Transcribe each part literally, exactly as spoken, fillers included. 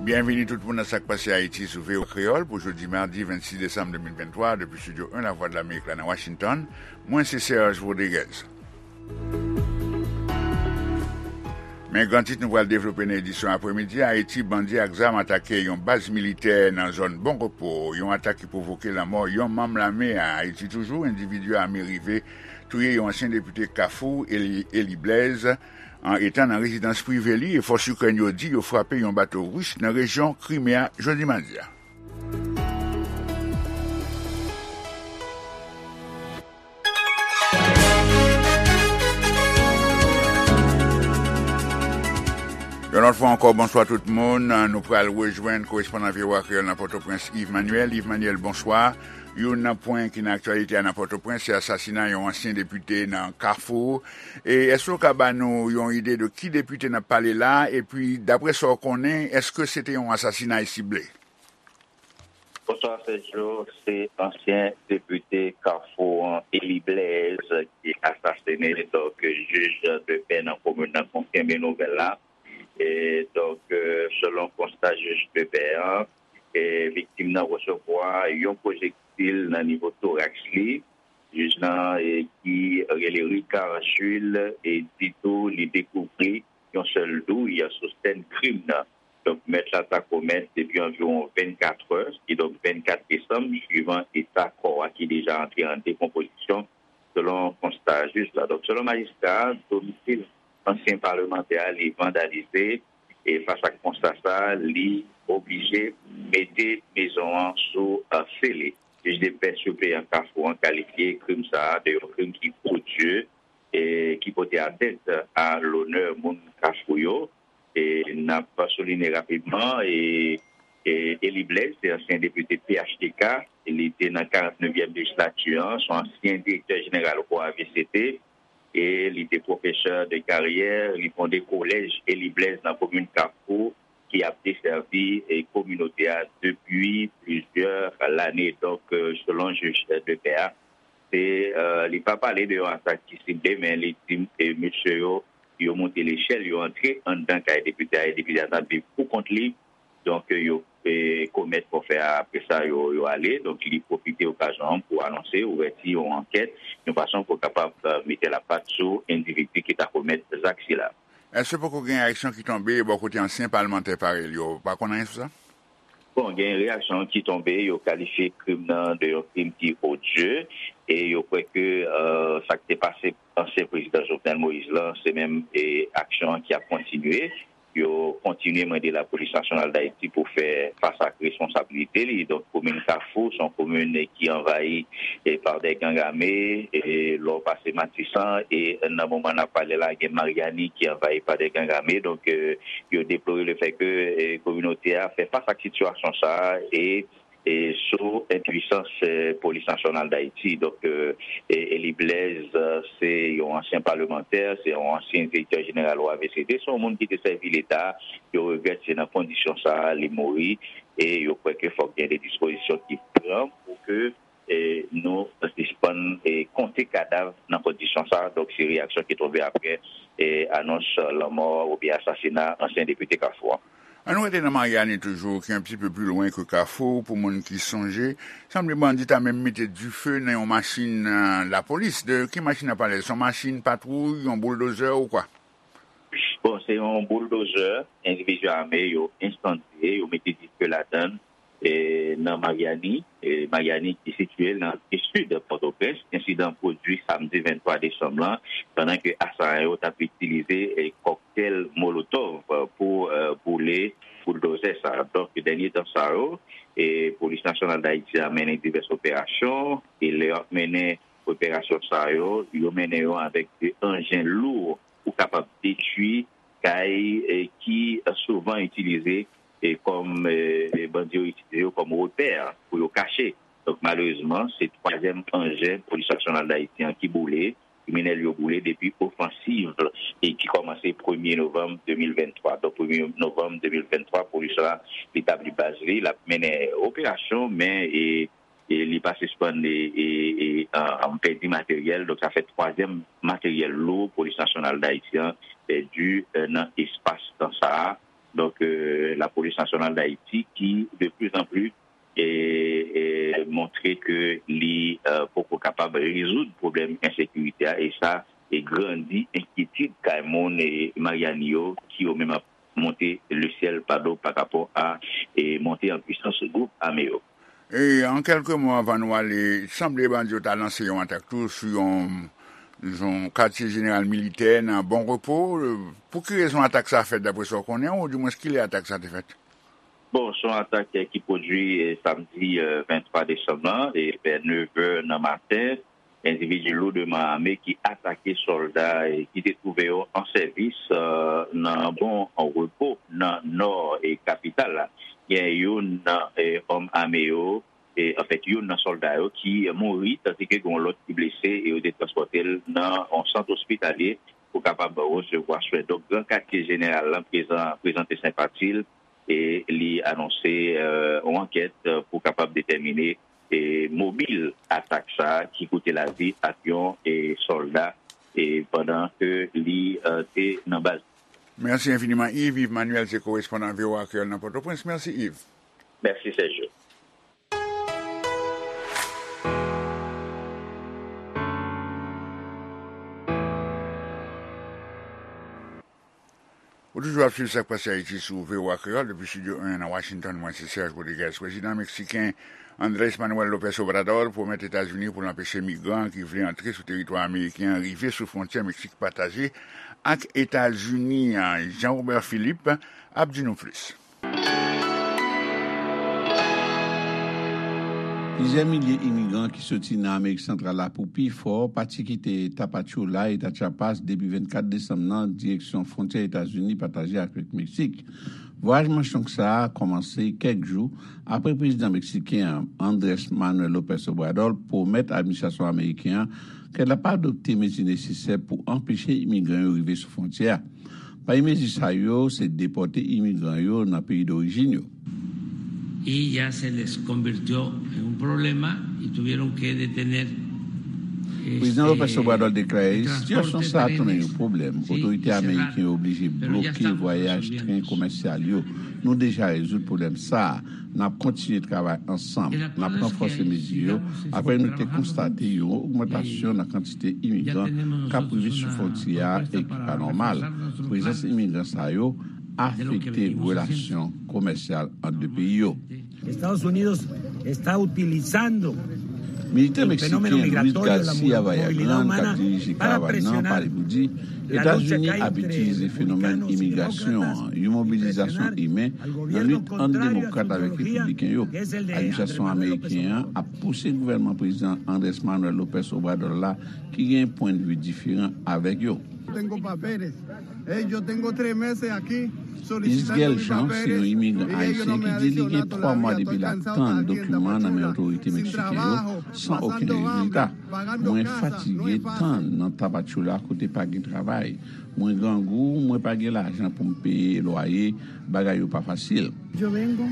Byenvini tout moun nan Sa k Pase Ayiti sou V O A Kreyòl pou jodi madi vennsis desanm de mil venntwa, depi Estidyo en Lavwadlamerik la nan Washington. Mwen se Serge Rodriguez. Men gran tit nou pral devlope nan edisyon apremidi a: Ayiti, bandi ak zam atake yon baz militè nan zòn Bon Repo, yon atak ki pwovoke lanmò yon manm lame a. Ayiti toujou, endividi ame rive touye yon ansyen depite Kafou, Eli, Eli Blaise, an etan nan rezidans prive li, e fòs Ikrèn yo di yo frape yon bato ris nan rejyon Krime a jodi madi a. Yon lòt fwa ankò, bonswa tout moun. Nou pral rejwenn korespondan V O A Kreyòl nan Pòtoprens, Yves Manuel. Yves Manuel, bonswa. Youn nan pwen ki nan aktyalite a nan Pòtoprens, se asasina yon ansyen depite nan Kafou. E èske w ka ba nou yon ide de ki depite n ap pale la? Epi, daprè sa w konnen, èske se te yon asasinay sible? Bonswa, Sergio. Se ansyen depite Kafou an, Eli Blaise, ki asasine. Donk, jij de pè nan komin nan konfime nouvèl la. E, donk, e, selon konsta jij de pè an, e, viktim nan resevwa yon pwojektil nan nivo toraks li. Jij nan, e, ki rele Ricard Jules, e, di tou li dekouvri yon sèl douy sou sèn krim nan. Donk, mèt la ta komèt depi anviwon vennkat è, kidonk vennkat desanm, swivan eta kò a ki deja antre an dekonpozisyon, selon konsta jij la. Donk, selon majistra a, domsil ansyen palmantè a, li vandalize, e fas ak konsta sa, li oblije mete mezon an sou, e, sele. Jij de pè sipleyan Kafou an kalifye krim sa a de yon krim ki odye, e ki pote atent a lonè moun Kafou yo. E n ap souliye rapidman, e, e Eli Blaise, se ansyen depite P H T K, li te nan karant nevyèm lejislati an, se yon ansyen direktè jeneral O A V C T, e li te pwofesè de karyè, li fonde kolèj Eli Blaise nan komin Kafou, ki ap desèvi, e, kominote a depi plizyè lane. Donk, e, selon jij de pè a, se, e, li pa pale de yon atak ki sible, men li di, e, mesye yo, yo monte lechèl, yo antre anndan kay depite a, e depite a t ap viv pou kont li. Donk, yo, e, komèt fòfè a, apre sa, yo, yo ale. Donk, li pwofite okazyon an pou anonse ouvèti yon ankèt, yon fason pou kapab, e, mete lapat sou endividi ki ta komèt zak sila. Èske poko gen aksyon ki tonbe bò kote ansyen palmantè parèy li yo? Ou pa konn anyen sou sa? Bon, gen reyaksyon ki tonbe, yo kalifye krim nan de yon krim ki odye, e yo kwè ke, e, sa k te pase ansyen prezidan Jovenel Moïse lan, se menm, e, aksyon an ki ap kontinye. Yo kontinye mande Lapolis Nasyonal d Ayiti pou fè fas ak responsabilite li. Donk, komin Kafou, se yon komin ki anvayi, e, pa de gang ame, e, lè w pase Matisan, e nan moman n ap pale la, gen Maryani ki anvayi pa de gang ame. Donk, e, yo deplore le fè ke, e, kominote a fè fas ak sitiyasyon sa a, e, e sou enpwisans, e, Polis Nasyonal d Ayiti. Donk, e, e, Eli Blaise, e, se yon ansyen palmantè, se yon ansyen direktè jeneral O A V C T, se yon moun ki te sèvi Leta. Yo regrèt se nan kondisyon sa a li mouri, e yo kwè ke fòk gen de dispozisyon ki pran pou ke, e, nou sispann, e, konte kadav nan kondisyon sa a. Donk, se reyaksyon ki tonbe apre, e, anons lanmò oubyen asasina ansyen depite Kafou an. Ann nou rete nan Maryani toujou, ki yon ti pe pli lwen ke Kafou, pou moun ki sonje. Sanble bandi ta menm mete dife nan yon machin, e, lapolis. De ki machin n ap pale? Se yon machin patwouy, yon bouldozè ou kwa? Bon, se yon bouldozè, endividi ame yo ensandye, yo mete dife ladan l, e, nan Maryani, e, Maryani ki sitiye nan sid Pòtoprens. Ensidan pwodui samdi venntwa desanm lan, pandan ke asayan yo t ap itilize, e, kòktèl molotòv pou, e, boule bouldozè sa a. Donk, dènye tan sa yo, e, Polis Nasyonal d Ayiti a mennen divès operasyon, e lè y ap mennen operasyon sa yo, yo mennen yo avèk de anjen lou pou kapab detwi kay, e, ki souvan itilize, e, kòm, e, e, bandi yo itilize yo kòm repè pou yo kache. Donk, malerezman, se twazyèm anjen Polis Nasyonal d Ayiti an ki boule, kriminèl yo boule depi ofansiv, e ki kòmanse premye novanm de mil venntwa. Donk, premye novanm de mil venntwa, polis la, li tabli baz li, l ap mennen operasyon, men, e, e li pa sispann, e, e, e, an, an pèdi materyèl. Donk, sa fè twazyèm materyèl lou Polis Nasyonal d Ayiti an pèdi, e, nan espas tan sa a. donk, euh, Lapolis Nasyonal d Ayiti, ki de plus en plus e, e montre ke li, euh, poko kapab rezoud pwoblèm ensekirite a, e sa e grandi enkyetid kay moun e Maryani yo, ki yo menm ap monte lesyèl pa do pa rapò a e monte an pwisans gwoup ame yo. E an kèlke mo, anvan nou ale, sanble bandi yo ta lanse yon atak tou sou yon, yon katye jeneral militè nan Bon Repo. Pou ki rezon atak sa fèt, daprè sa w konnen, oudimwens kilè atak sa te fèt? Bon, se yon atak, eh, ki pwodui, eh, samdi, eh, venntwa desanm lan, e vè nevè nan maten, endividi loudman ame ki atake sòlda, eh, ki te twouve yo an sèvis, eh, nan Bon Repo, nan nò, eh, kapital la. Gen youn nan, eh, òm ame yo, eh, anfèt, youn nan sòlda yo ki mouri, tandiske gen yon lòt ki blese, e yo te transpòte l nan yon sant ospitalye pou kapab resevwa swen. Donk, Gran Katye Jeneral lan prezan, prezante senpati l, e li anonse, eh, yon ankèt, eh, pou kapab detèmine, eh, mobil atak sa a ki koute lavi ak yon, eh, sòlda, eh, pandan ke li, eh, te nan baz. Mèsi enfiniman, Yves. Yves Manuel se korespondan V O A Kreyòl nan Pòtoprens. Mèsi, Yves. Mèsi, Sergio. Ou toujou ap swiv Sa k Pase Ayiti sou V O A Kreyòl, depi Estidyo en nan Washington, mwen se Serge Rodriguez. Prezidan meksiken Andrés Manuel López Obrador pwomèt Etazini pou l anpeche migran ki vle antre sou teritwa ameriken an rive sou fwontyè Meksik pataje ak Etazini an. Jean Robert Philippe ap di nou plis. Plizyè milye imigran ki soti nan Amerik Santral la pou pi fò pati kite Tapachula, eta Chiapas, depi vennkat desanm nan, direksyon fwontyè Etazini pataje avèk Meksik. Vwayaj manch long sa a kòmanse kèk jou apre prezidan meksiken an, Andrés Manuel López Obrador, pwomèt administrasyon ameriken an ke l ap adopte mezi nesesè pou anpeche imigran yo rive sou fwontyè a. Pami mezi sa yo, se depòte imigran yo nan peyi dorijin yo. Y ya se les convirtió en un problema y tuvieron que detener. Prezidan López Obrador deklare, sitiyasyon sa a tounen yon pwoblèm. Otorite ameriken yo oblije bloke vwayaj tren komèsyal yo. Nou deja rezoud pwoblèm sa a. N ap kontinye travay ansanm. N ap ranfòse mezi yo apre nou te konstate yon ogmantasyon nan kantite imigran k ap rive sou fwontyè a e ki pa nòmal. Prezans imigran sa yo afekte relasyon komèsyal ant de peyi yo. Estados Unidos está utilizando Militè meksiken Luis Garcia Vallagrán, k ap dirije karavàn nan, pale pou di Etazini ap itilize fenomèn imigrasyon an, yon mobilizasyon imen, nan lit ant demokrat avèk repibliken yo. Administrasyon ameriken an ap pouse gouvènman prezidan Andrés Manuel López Obrador la, ki gen pwennvi diferan avèk yo. Isgel Jean se yon imigran ayisyen ki di li gen twa mwa depi l ap tann dokiman nan men otorite meksiken yo san okenn rezilta. Mwen fatige tann nan Tapachula kote pa gen travay. Mwen grangou, mwen pa gen lajan pou m peye lwaye, bagay yo pa fasil. Yo vengo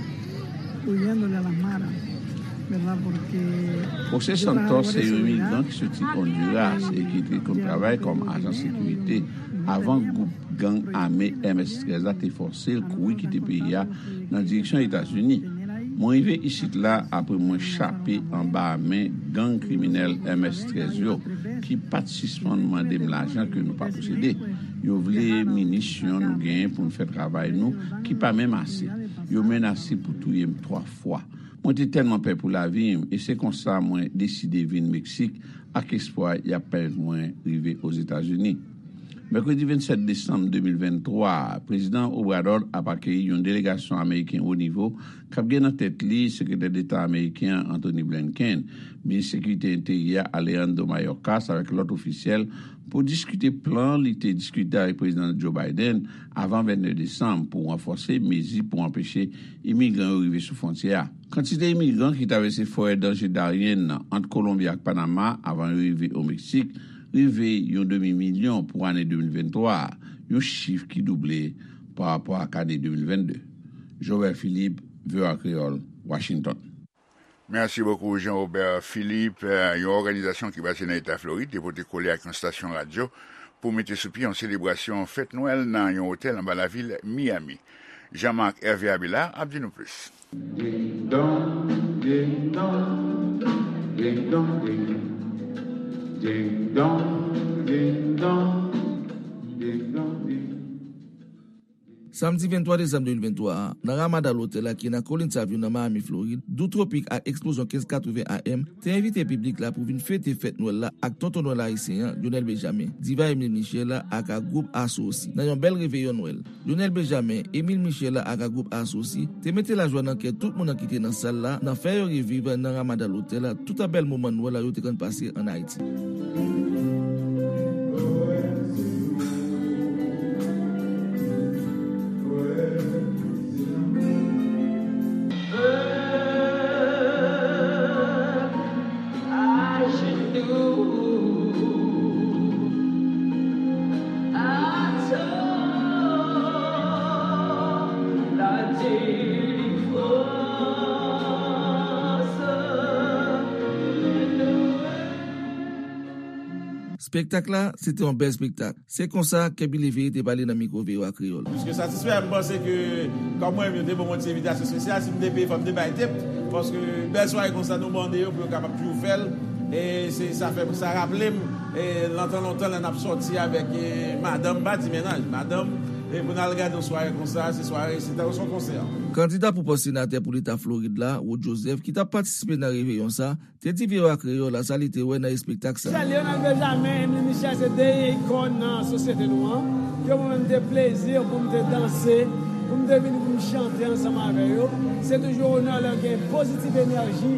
huyéndole a las maras, ¿verdad? Porque José Santos se yon imigran ki soti Honduras e ki te konn travay kòm ajan sekirite avan gwoup gang ame M S trèz la te fòse l kouri kite peyi a nan direksyon Etazini. Mwen rive isit la apre mwen chape anba men gang kriminèl M S trèz yo, ki pa t sispann mande m lajan ke nou pa posede. Yo vle minisyon nou genyen pou n fè travay nou, ki pa menm ase. Yo menase pou touye m twa fwa. Mwen te tèlman pè pou lavi m, e se konsa mwen deside vin Meksik ak espwa y ap pèmèt mwen rive Ozetazini. Mèkredi vennsèt desanm de mil venntwa a, Prezidan Obrador ap akeyi yon delegasyon ameriken wo nivo k ap gen nan tèt li Sekretè Deta ameriken an, Antony Blinken, Minis Sekirite Enteryè Alejandro Mayorkas avèk lòt ofisyèl pou diskite plan li te diskite avèk Prezidan Joe Biden avan vennnèf desanm pou ranfòse mezi pou anpeche imigran yo rive sou fwontyè a. Kantite imigran ki travèse forè danje Darien nan ant Kolonbi ak Panama avan yo rive o Meksik rive yon demi milyon pou ane de mil venntwa a, yon chif ki double pa rapò ak ane de mil vennde. Joël Philippe, V O A Kreyòl, Washington. Mèsi bokou, Jean Robert Philippe. Yon òganizasyon ki baze nan eta Florid te pote kole ak yon estasyon radyo pou mete sou pye yon selebrasyon fèt Nwèl nan yon otèl anba lavil Miami. Jean-Marc Hervé Abélard ap di nou plis. Ding dong, ding dong, ding dong, ding ding dong, ding dong, ding dong, ding. Samdi venntwa desanm de mil venntwa a, nan Ramada Lotèl la ki nan Collins Avenue nan Miami, Florid, dou twopik ak eksplozyon kenz katreven A M te envite piblik la pou vin fete fèt Nwèl la ak Tonton Nwèl ayisyen an, Lionel Benjamin, Diva Emile Michel la ak a gwoup Aso osi, nan yon bèl reveyon Nwèl. Lionel Benjamin, Emile Michel la ak a gwoup Aso osi te mete lajwa nan kè tout moun nan ki te nan sal la, nan fè yo reviv nan Ramada Lotèl la, tout a bèl moman Nwèl la yo te konn pase ann Ayiti. Espektak la, se te yon bèl espektak. Se konsa, Kèbi Leveye te pale nan mikwo V O A Kreyòl. Plis ke satisfè, m panse ke, kòm mwen menm, yo te ban mwen ti envitasyon espesyal, si m te peye, fò m te bay tip, paske bèl sware konsa, nou mande yo pou yo kapab toujou fè l, e se, sa fè, sa raple m, e, lontan, lontan, lè n ap sòti avèk, e, madanm, m pa di mennaj, madanm, e pou n al gade yon sware konsa, se sware, se tankou se yon konsè. Kandida pou pòs senatè pou leta Florid la, Rod Joseph, ki t ap patisipe nan reveyon sa, te di V O A Kreyòl la sa li te wè nan espektak sa. Michel, Lionel Benjamin, Emile Michel se de ikòn nan sosyete nou an. Ke mwen menm te plezi pou m te danse, pou m te vini pou m chante ansanm avè yo. Se toujou onè lè gen pozitiv enèji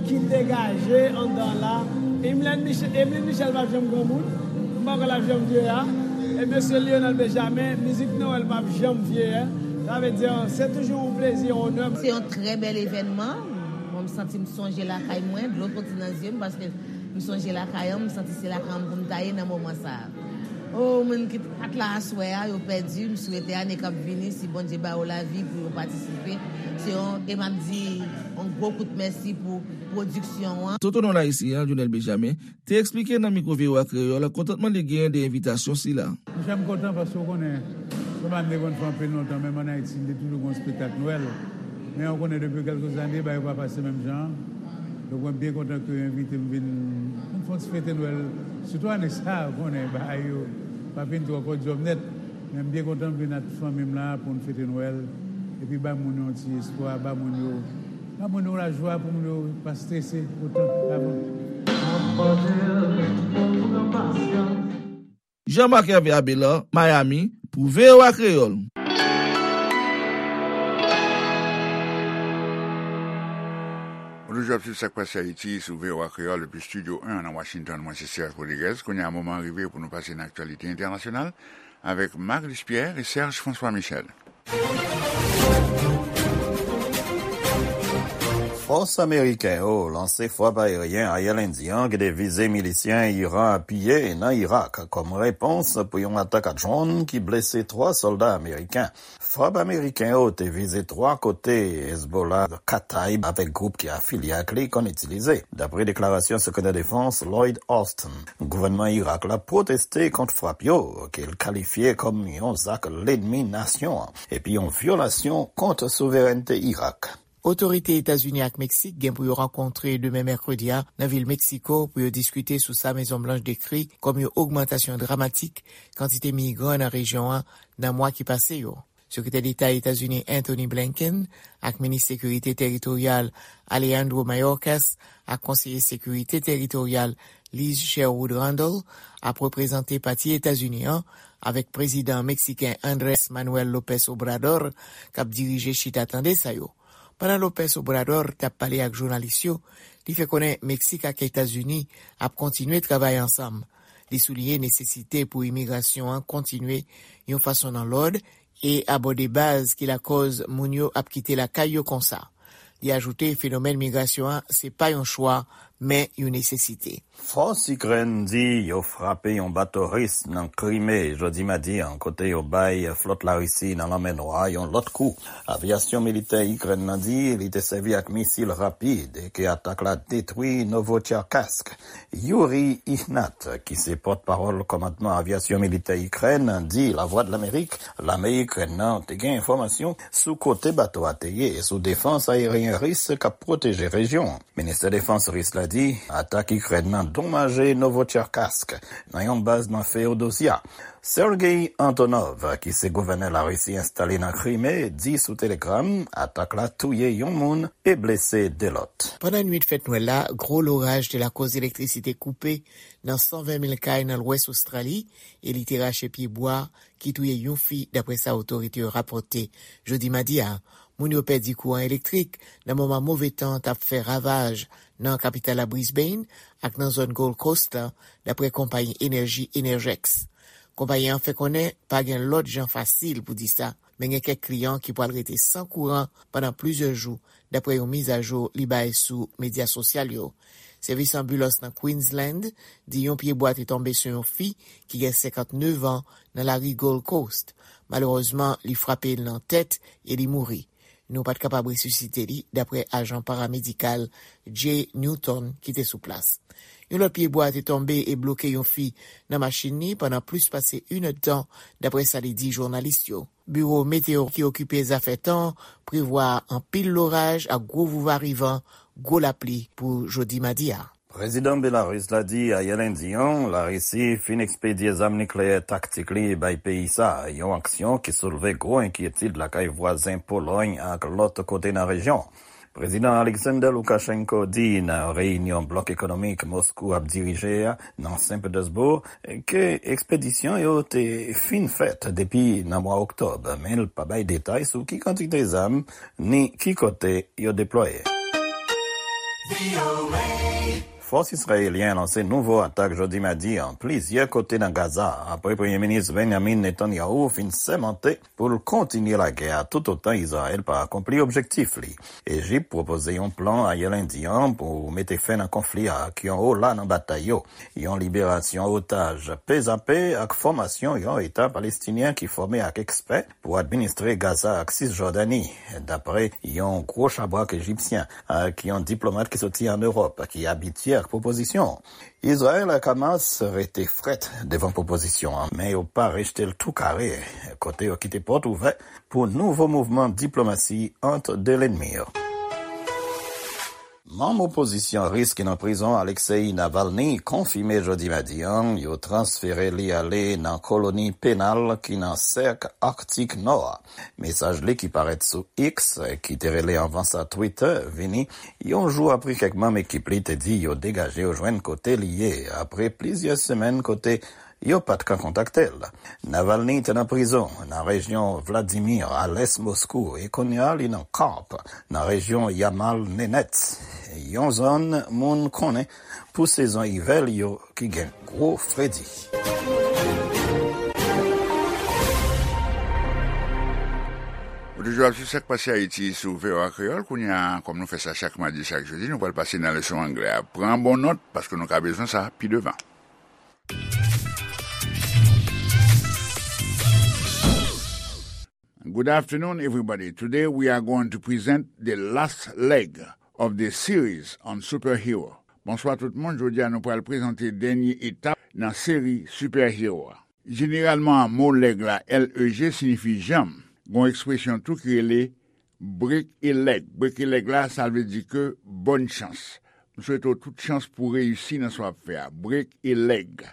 ki degaje anndan la. Emile Michel, Emile Michel p ap janm granmoun. M pa kwè l ap janm vye a. E mesye Lionel Benjamin, mizik Nwèl p ap janm vye a. Sa vle di, se toujou yon plezi, yon onè. Se yon trè bèl evènman. Mwen, m santi m sonje lakay mwen, dlo soti nan zye m, paske m sonje lakay an, m santi se lakay an pou m ta ye nan moman sa a. O, moun ki t-, pa t la aswè a, yo pèdi, m swete ane k ap vini, si Bondye ba yo lavi pou yo patisipe. Se yon, e m ap di, yon gwo kout mèsi pou pwodiksyon an. Tonton Nwèl ayisyen an, Lionel Benjamin, te eksplike nan mikwo V O A Kreyòl kontantman li genyen de envitasyon sila. Monchè, m kontan paske w konnen, se pa m te konn fè anpil lontan, menm ann Ayiti, m te toujou gen yon espektak Nwèl. Men w konnen, depi kèlke zane, bagay yo pa pase menm jan an. Donk, mwen byen kontan ke yo envite m vin, vin fè yon ti fete Nwèl. Sitou ane sa a, w konnen, bagay yo pa vin twò kòdyòm nèt. Men m byen kontan m vin ak fanmi m la pou n fete Nwèl. Epi ba moun yo yon ti espwa, ba moun yo, ba moun yo lajwa pou moun yo pa strese otan avan. Jean-Marc Hervé Abélard, Miami, pou V O A Kreyòl. Ou toujou ap swiv Sa k Pase Ayiti sou V O A Kreyòl depi Estidyo en nan Washington. Mwen se Serge Rodriguez. Kounye a, moman an rive pou nou pase nan aktyalite entènasyonal avèk Marc Luce Pierre e Serge François Michel. Fòs ameriken yo lanse frap ayeryen ayè lendi an ki te vize milisyen Iran apiye nan Irak kòm repons pou yon atak a dwòn ki blese twa sòlda ameriken. Frap ameriken yo te vize twa kote Hezbollah, Kataib avèk gwoup ki afilye ak li konn itilize, dapre deklarasyon Sekretè Defans Lloyd Austin. Gouvènman Irak la pwoteste kont frap yo, ke l kalifye kòm yon zak lènmi nasyon an, epi yon vyolasyon kont souverènte Irak. Otorite Etazini ak Meksik gen pou yo rankontre demen mèkredi a nan vil Meksiko pou yo diskite sou sa Mezon Blanch dekri kòm yon ogmantasyon dramatik kantite migran nan rejyon an nan mwa ki pase yo. Sekretè Deta Etazini Antony Blinken ak minis sekirite teritoryal Alejandro Mayorkas ak konseye sekirite teritoryal Liz Sherwood Randall ap reprezante pati Etazini an avèk prezidan meksiken Andrés Manuel López Obrador k ap dirije chita tande sa yo. Pandan López Obrador t ap pale ak jounalis yo, li fè konnen Meksik ak Etazini ap kontinye travay ansanm. Li souliye nesesite pou imigrasyon an kontinye yon fason nan lòd e abòde baz ki lakòz moun yo ap kite lakay yo konsa. Li ajoute fenomèn migrasyon an se pa yon chwa, men yon nesesite. Fòs Ikrèn di yo frape yon bato ris nan Krime jodi madi an, kote yo bay flòt Larisi nan Lanmè Nwa yon lòt kou. Avyasyon militè Ikrèn nan di li te sèvi ak misil rapid e ke atak la detwi Novotcherkassk. Yuri Ihnat, ki se pòtpawòl kòmandman avyasyon militè Ikrèn, di Lavwadlamerik lame Ikrèn nan te gen enfòmasyon sou kote bato a te ye e sou defans ayeryen ris k ap pwoteje rejyon an. Ministè Defans ris la di atak Ikrèn nan donmaje Novotcherkassk, nan yon baz nan Feodosya. Sergei Antonov, ki se gouvènè Larisi enstale nan Krime, di sou Telegram atak la touye yon moun e blese de lòt. Pandan nwit fèt Nwèl la, gwo loraj te lakòz elektrisite koupe nan san ven mil kay nan lwès Ostrali e li te rache pye bwa ki touye yon fi, daprè sa otorite yo rapòte jodi madi a. Moun yo pèdi kouran elektrik nan moman move tan t ap fè ravaj nan kapital la Brisbane ak nan zòn Gold Coast la, daprè konpayi enèji Energex. Konpayi an fè konnen pa gen lòt jan fasil pou di sa, men gen kèk kliyan ki pral rete san kouran pandan plizyè jou, daprè yon mizajou li bay sou medya sosyal yo. Sèvis anbilans nan Queensland di yon pye bwa te tonbe sou yon fi ki gen senkantnèf an nan lari Gold Coast. Malerezman, li frape l nan tèt e li mouri. Nou pa t kapab resisite li, daprè ajan paramedikal Jay Newton ki te sou plas. Yon lòt pye bwa te tonbe e bloke yon fi nan machin li pandan plis pase inèdtan, daprè sa li di jounalis yo. Biwo Meteo ki okipe zafè tan an prevwa anpil loraj ak gwo vouvarivan, gwo lapli pou jodi madi a. Prezidan Belarus la di ayè lendi an Larisi fin ekspedye zam nikleyè taktik li bay peyi sa a, yon aksyon ki soulve gwo enkyetid lakay vwazen Polòy ak lòt kote nan rejyon. Prezidan Alexander Lukashenko di nan reyinyon blòk ekonomik Moskou ap dirije a nan Saint Petersburg ke ekspedisyon yo te fin fèt depi nan mwa oktòb, men l pa bay detay sou ki kantite zam ni ki kote yo deplwaye. Fòs izrayelyen lanse nouvo atak jodi madi an plizyè kote nan Gaza, apre Premye Minis Benjamin Netanyahu fin sèmante pou l kontinye lagè a toutotan Izrayèl pa akonpli objektif li. Ejip pwopoze yon plan ayè lendi an pou mete fen nan konfli a ak yon ola nan batay yo, yon liberasyon otaj pezape ak fòmasyon yon eta palestinyen ki fòme ak ekspè pou administre Gaza ak Sisjòdani, dapre yon gwo chabrak ejipsyen ak yon diplomat ki soti ann Ewòp ki abitye ak pwopozisyon. Izrayèl ak Hamas rete frèt devan pwopozisyon an, men yo pa rejte l tou kare, kote yo kite pòt ouvè pou nouvo mouvman diplomasi ant de lènmi yo. Manm opozisyon ris ki nan prizon Alexei Navalny konfime jodi madi an yo transfere li ale nan koloni penal ki nan sèk Aktik Nò a. Mesaj li ki parèt sou X, ki te rele anvan sa Twitter, vini yon jou apre kèk manm ekip li te di yo degaje yo jwenn kote li ye, apre plizyè semèn kote yo pa t ka kontakte l. Navalny te nan prizon nan rejyon Vladimir, a lès Moskou, e kounye a li nan Karp, nan rejyon Yamal Nenets, yon zòn moun konnen pou sezon ivè li yo ki gen gwo fredi. Ou toujou ap sou Sa k Pase Ayiti sou V O A Kreyòl. Kounye a, kòm nou fè sa chak madi, chak jedi, nou pral pase nan leson anglè a. Pran bon nòt, paske nou ka bezwen sa pi devan. Good afternoon, everybody. Today we are going to present the last leg of the series on superhero. Bonswa tout moun, jodi a nou pral prezante dènye etap nan seri superhero a. Jeneralman, mo leg la, L E G, siyifi janm. Gon ekspresyon tou ki rele break a leg. Break a leg la, sa vle di ke bòn chans. M swete w tout chans pou w reyisi nan sa w ap fè a. Break a leg.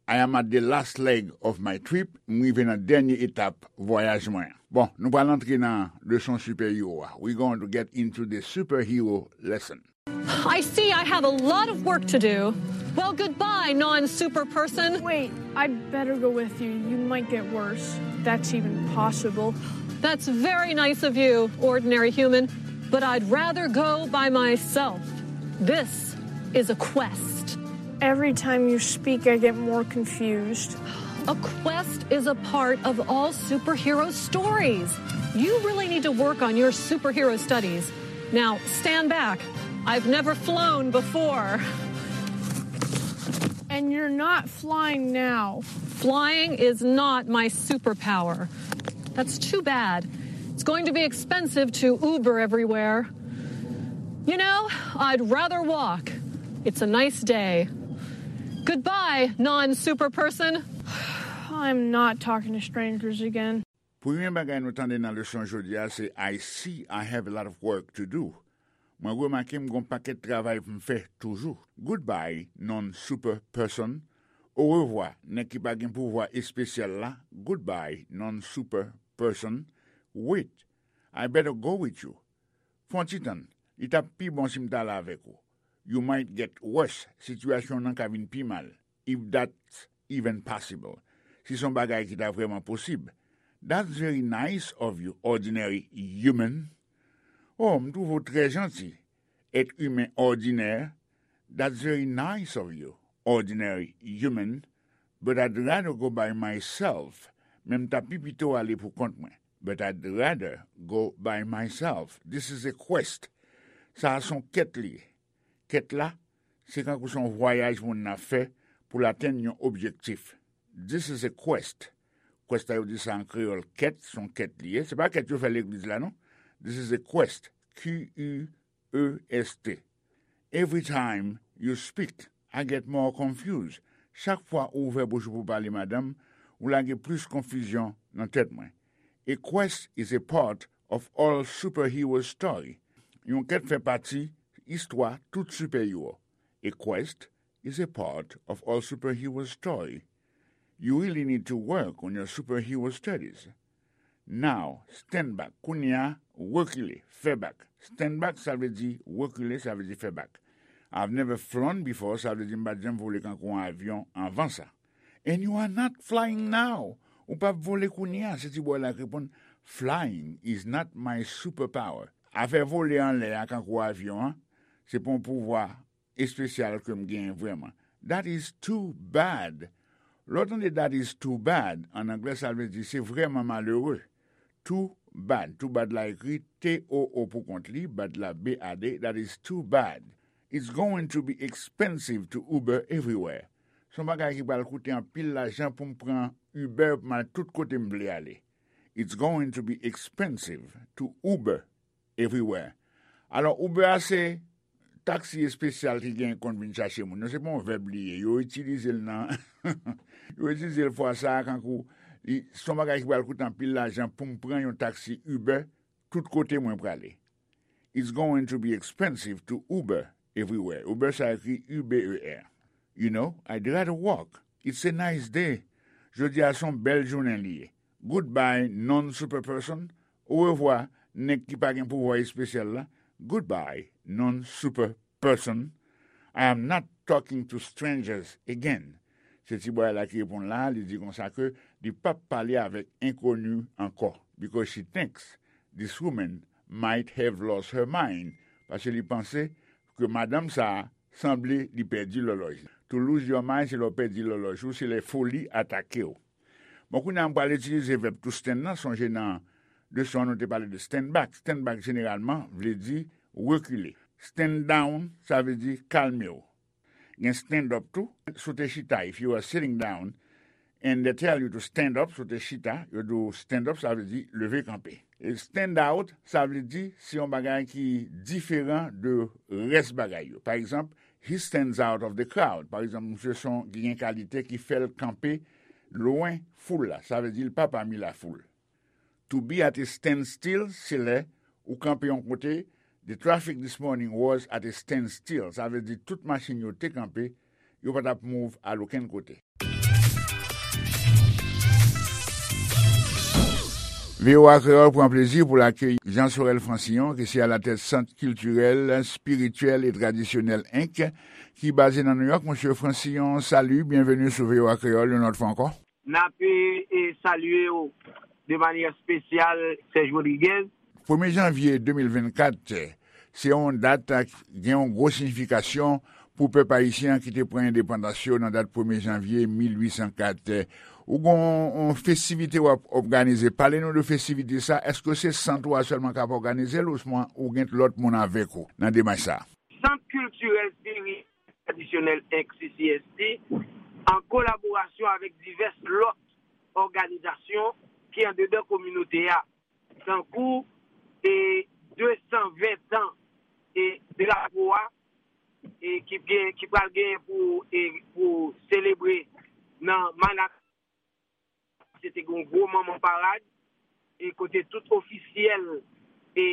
I am at the last leg of my trip. M rive nan dènye etap vwayaj mwen an. Bon, nou pral antre nan leson sipèhero a. We going to get into the superhero lesson. I see I have a lot of work to do. Well, goodbye, non super person. Wait, I'd better go with you. You might get worse. That's even possible. That's very nice of you, ordinary human, but I'd rather go by myself. This is a quest. Every time you speak, I get more confused. A quest is a part of all superhero stories. You really need to work on your superhero studies. Now, stand back. I've never flown before. And you're not flying now. Flying is not my superpower. That's too bad. It's going to be expensive to Uber everywhere. You know, I'd rather walk. It's a nice day. Goodbye, non super person. I'm not talking to strangers again. Premye bagay nou tande nan leson jodi a se I see I have a lot of work to do. Mwen remake m gon pakèt travay pou m fè toujou. Goodbye, non super person. Orevwa, nèg ki pa gen pouvwa espesyal la. Goodbye, non super person. Wait, I better go with you. Fè yon ti tann, li t ap pi bon si m t ale avèk ou. You might get worse, sitiyasyon w nan ka vin pi mal. If that's even possible. Si se yon bagay ki ta vrèman posib. That's very nice of you, ordinary human. Oh, m twouve w trè janti, èt imen òdinè. That's very nice of you, ordinary human. But I'd rather go by myself. Men m ta pi pito ale pou kont mwen. But I'd rather go by myself. This is a quest. Sa a se yon kèt li ye. Kèt la, se kankou se yon vwayaj moun nan ap fè pou l atenn yon objektif. This is a quest. Quest la yo di sa an kreyòl kèt, se yon kèt li ye. Se pa kèt yo fè legliz la non. This is a quest. Q U E S T. Every time you speak, I get more confused. Chak fwa ou ouvè bouch ou pou pale, madanm, ou lage plis konfizyon nan tèt mwen. A quest is a part of all superhero story. Yon kèt fè pati istwa tout sipèwo. A quest is a part of all superhero story. You really need to work on your superhero studies. Now, stand back. Kounye a, rekile, fè bak. Stand back, sa vle di rekile, sa vle di fè bak. I've never flown before, sa vle di m pa t janm vole kankou yon avyon anvan sa. And you are not flying now. Ou p ap vole kounye a, se ti bòy la k reponn. Flying is not my superpower. Afè vole anlè a kankou avyon an, se pa yon pouvwa espesyal ke m genyen vrèman. That is too bad. Lè w tande that is too bad, an anglè sa vle di se vrèman malere. Too bad. Too bad la ekri T O O pou kont li, bad la B A D. That is too bad. It's going to be expensive to Uber everywhere. Se yon bagay ki pral koute anpil lajan pou m pran Uber pou m al tout kote m vle ale. It's going to be expensive to Uber everywhere. Alò, Uber a se taksi espesyal ki gen konn vin chache moun. Non, se pa yon vèb li ye. Yo itilize l nan, yo itilize l fwa sa a kankou li, se yon bagay ki pral koute anpil lajan pou m pran yon taksi Uber tout kote mwen prale. It's going to be expensive to Uber everywhere. Uber sa ekri U B E R. You know, I'd rather walk. It's a nice day. Jodi a se yon bèl jounen li ye. Goodbye, non super person. Orevwa, nèg ki pa gen pouvwa espesyal la. Goodbye, non super person. I am not talking to strangers again. Se ti bòy la ki reponn la, li di konsa ke li p ap pale avèk enkoni ankò. Because she thinks this woman might have lost her mind. Paske li panse ke madanm sa a sanble li pèdi lòlòj li. To lose your mind, se lè w pèdi lòlòj ou, se lè foli atake w. Bon, kounye a m pral itilize vèb to stand nan, sonje nan leson an nou te pale de stand back. Stand back jeneralman vle di rekile. Stand down, sa vle di kalme w. Gen stand up tou, si w te chita, if you are sitting down, and they tell you to stand up, si w te chita, yo di w stand up, sa vle di leve kanpe. E stand out, sa vle di se yon bagay ki diferan de rès bagay yo. Pa egzanp, he stands out of the crowd. Pa egzanp, misye se yon ki gen kalite ki fè l kanpe lwen foul la. Sa vle di l pa pami lafoul. To be at a standstill, se lè ou kanpe yon kote. The traffic this morning was at a standstill. Sa vle di tout machin yo te kanpe, yo pa t ap move al okenn kote. V O A Kreyòl pran plezi pou l akeyi Jean Sorel Francillon, ki se alatèt Sant Kiltirèl, Espirityèl e Tradisyonèl Inc, ki baze nan Nouyòk. Mesye Francillon, salut, byenveni sou V O A Kreyòl yon lòt fwa ankò. N ap, e, e, salye w de manyè espesyal, Serge Rodriguez. Premye janvye de mil vennkat, se yon dat ki gen yon gwo siyifikasyon pou pèp ayisyen an ki te pran endepandans yo nan dat premye janvye mil uit san kat. Ou gen yon, yon festivite w ap òganize. Pale nou de festivite sa. Èske se sant ou a sèlman k ap òganize l ouswa ou gen lòt moun avèk ou nan demach sa? tradisyonèl, enk C C S T, an kolaborasyon avèk divès lòt òganizasyon ki andedan kominote a, tankou e de san ven tan e drapo a e ki gen, ki pral genyen pou, e pou selebre nan Manhattan. Se te gen yon gwo manman parad e kote tout ofisyèl e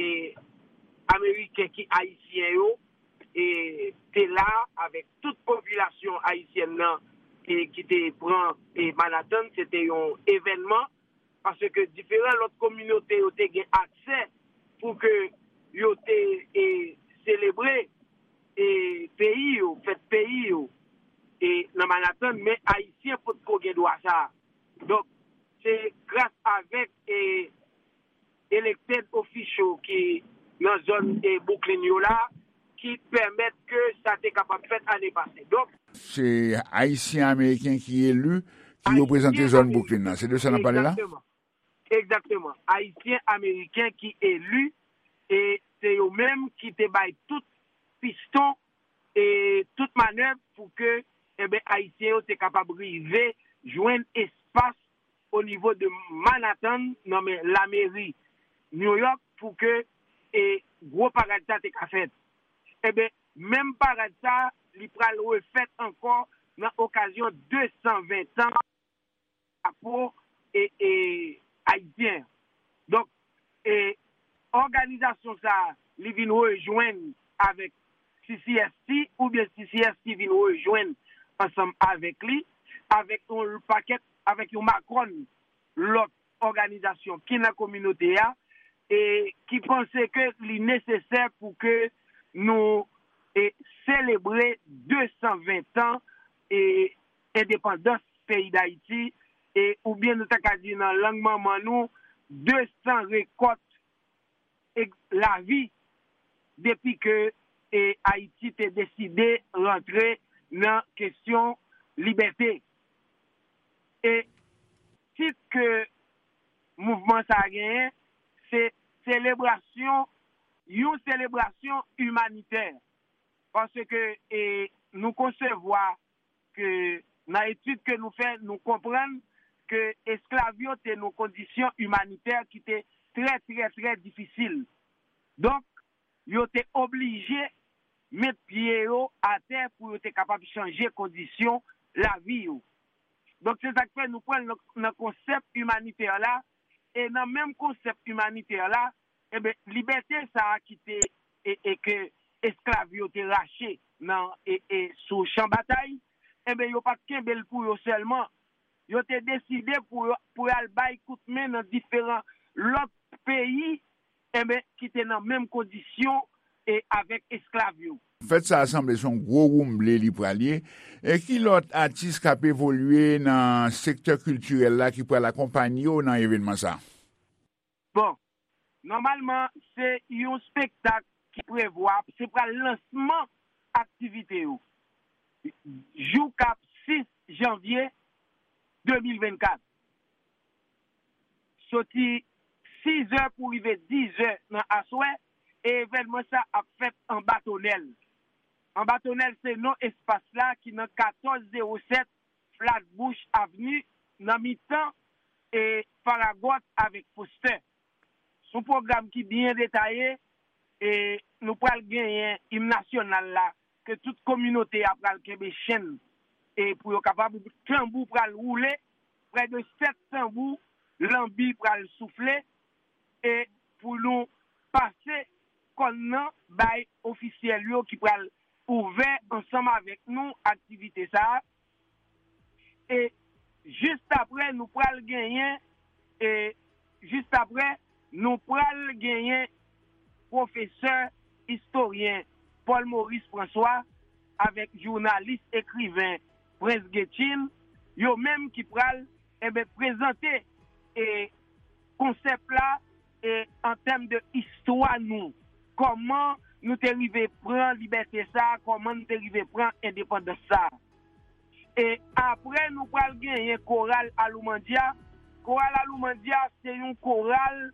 ameriken ki ayisyen yo e te la avèk tout popilasyon ayisyèn nan e ki te pran e Manhattan. Se te yon evènman paske diferan lòt kominote yo te gen aksè pou ke yo te e selebre e peyi yo, fèt peyi yo e nan Manhattan, men ayisyen potko gen dwa sa a. Donk, se gras avèk e elected official ki nan zòn e Brooklyn yo la ki pèmèt ke sa te kapab fèt ane pase. Donk, se Ayisyen Ameriken ki eli, ki reprezante zòn Brooklyn nan. Se de sa n ap pale la? Egzakteman. Egzakteman. Ayisyen Ameriken ki eli e se yo menm ki te bay tout piston e tout manèv pou ke, enben, Ayisyen yo te kapab rive jwenn espas o nivo de Manhattan nan men lameri New York pou ke e gwo parad sa te ka fèt. Enben, menm parad sa, li pral refèt ankò nan okazyon de san ven tan drapo e, e ayisyen. Donk, e òganizasyon sa a, li vin rejwenn avèk C C S T, oubyen C C S T vin rejwenn ansanm avèk li, avèk yon pakèt, avèk yon makòn lòt òganizasyon ki nan kominote a, e ki panse ke li nesesè pou ke nou e selebre de san ven tan e endepandans peyi Dayiti, e oubyen nou ta ka di nan lang manman nou, de san rekòt e lavi depi ke e Ayiti te deside rantre nan kesyon libète. E tit ke mouvman sa a genyen, se selebrasyon, yon selebrasyon imanitè. Paske e nou konsevwa ke nan etid ke nou fè, nou konprann ke esklav yo te nan kondisyon imanitè ki te trè, trè, trè difisil. Donk, yo te oblije met pye yo atè pou yo te kapab chanje kondisyon lavi yo. Donk, se sa k fè nou pran l nan, nan konsèp imanitè la, e nan menm konsèp imanitè la, enben, libète sa a ki te, e, e ke esklav yo te rache nan, e, e sou chan batay, enben, yo pa t kenbe l pou yo sèlman. Yo te deside pou yo, pou y al bay kout men nan diferan lòt peyi, enben, ki te nan menm kondisyon e avèk esklav yo. Fèt sa a sanble se yon gwo woumble li pral ye. E ki lòt atis k ap evolye nan sektè kiltirèl la ki pral akonpanye w nan evènman sa a? Bon, nòmalman, se yon spektak ki prevwa, se pral lansman aktivite yo jou k ap sis janvye de mil vennkat. Soti sizè pou rive dizè nan aswè, e evènman sa ap fèt anba Tonèl. Anba Tonèl se non espas la ki nan katòz zewo sèt Flatbush Avenue, nan mitan e Farragut avèk Foster. Se yon pwogram ki byen detaye, e nou pral genyen im nasyonal la, ke tout kominote a pral kenbe chenn, e pou yo kapab, tanbou pral woule, prè de sèt tanbou, lanbi pral soufle, e pou nou pase kòn nan bay ofisyèl yo ki pral ouvè ansanm avèk nou aktivite sa a. E jis apre, nou pral genyen, e jis apre, nou pral genyen pwofesè istoryen Paul Maurice François avèk jounalis ekriven Prince Getjin, yo menm ki pral, enben, prezante e konsèp la e an tèm de istwa nou, kòman nou te rive pran libète sa a, kòman nou te rive pran endepandans sa a. E apre, nou pral genyen koral Aloumandya. Koral Aloumandya se yon koral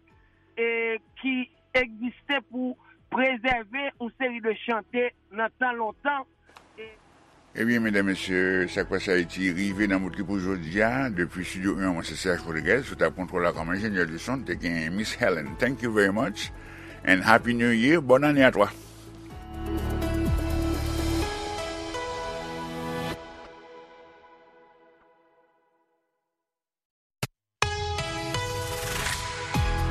e ki egziste pou prezève yon seri de chante nan tan lontan. E Ebyen medam mesye, Sak Pase Ayiti rive nan bout li pou jodi a. Depi Studio en, mwen se Serge Rodriguez, sou tab kontwòl la kòm enjenyè de son te gen Miss Helen. Thank you very much and Happy New Year. Bòn ane a twa.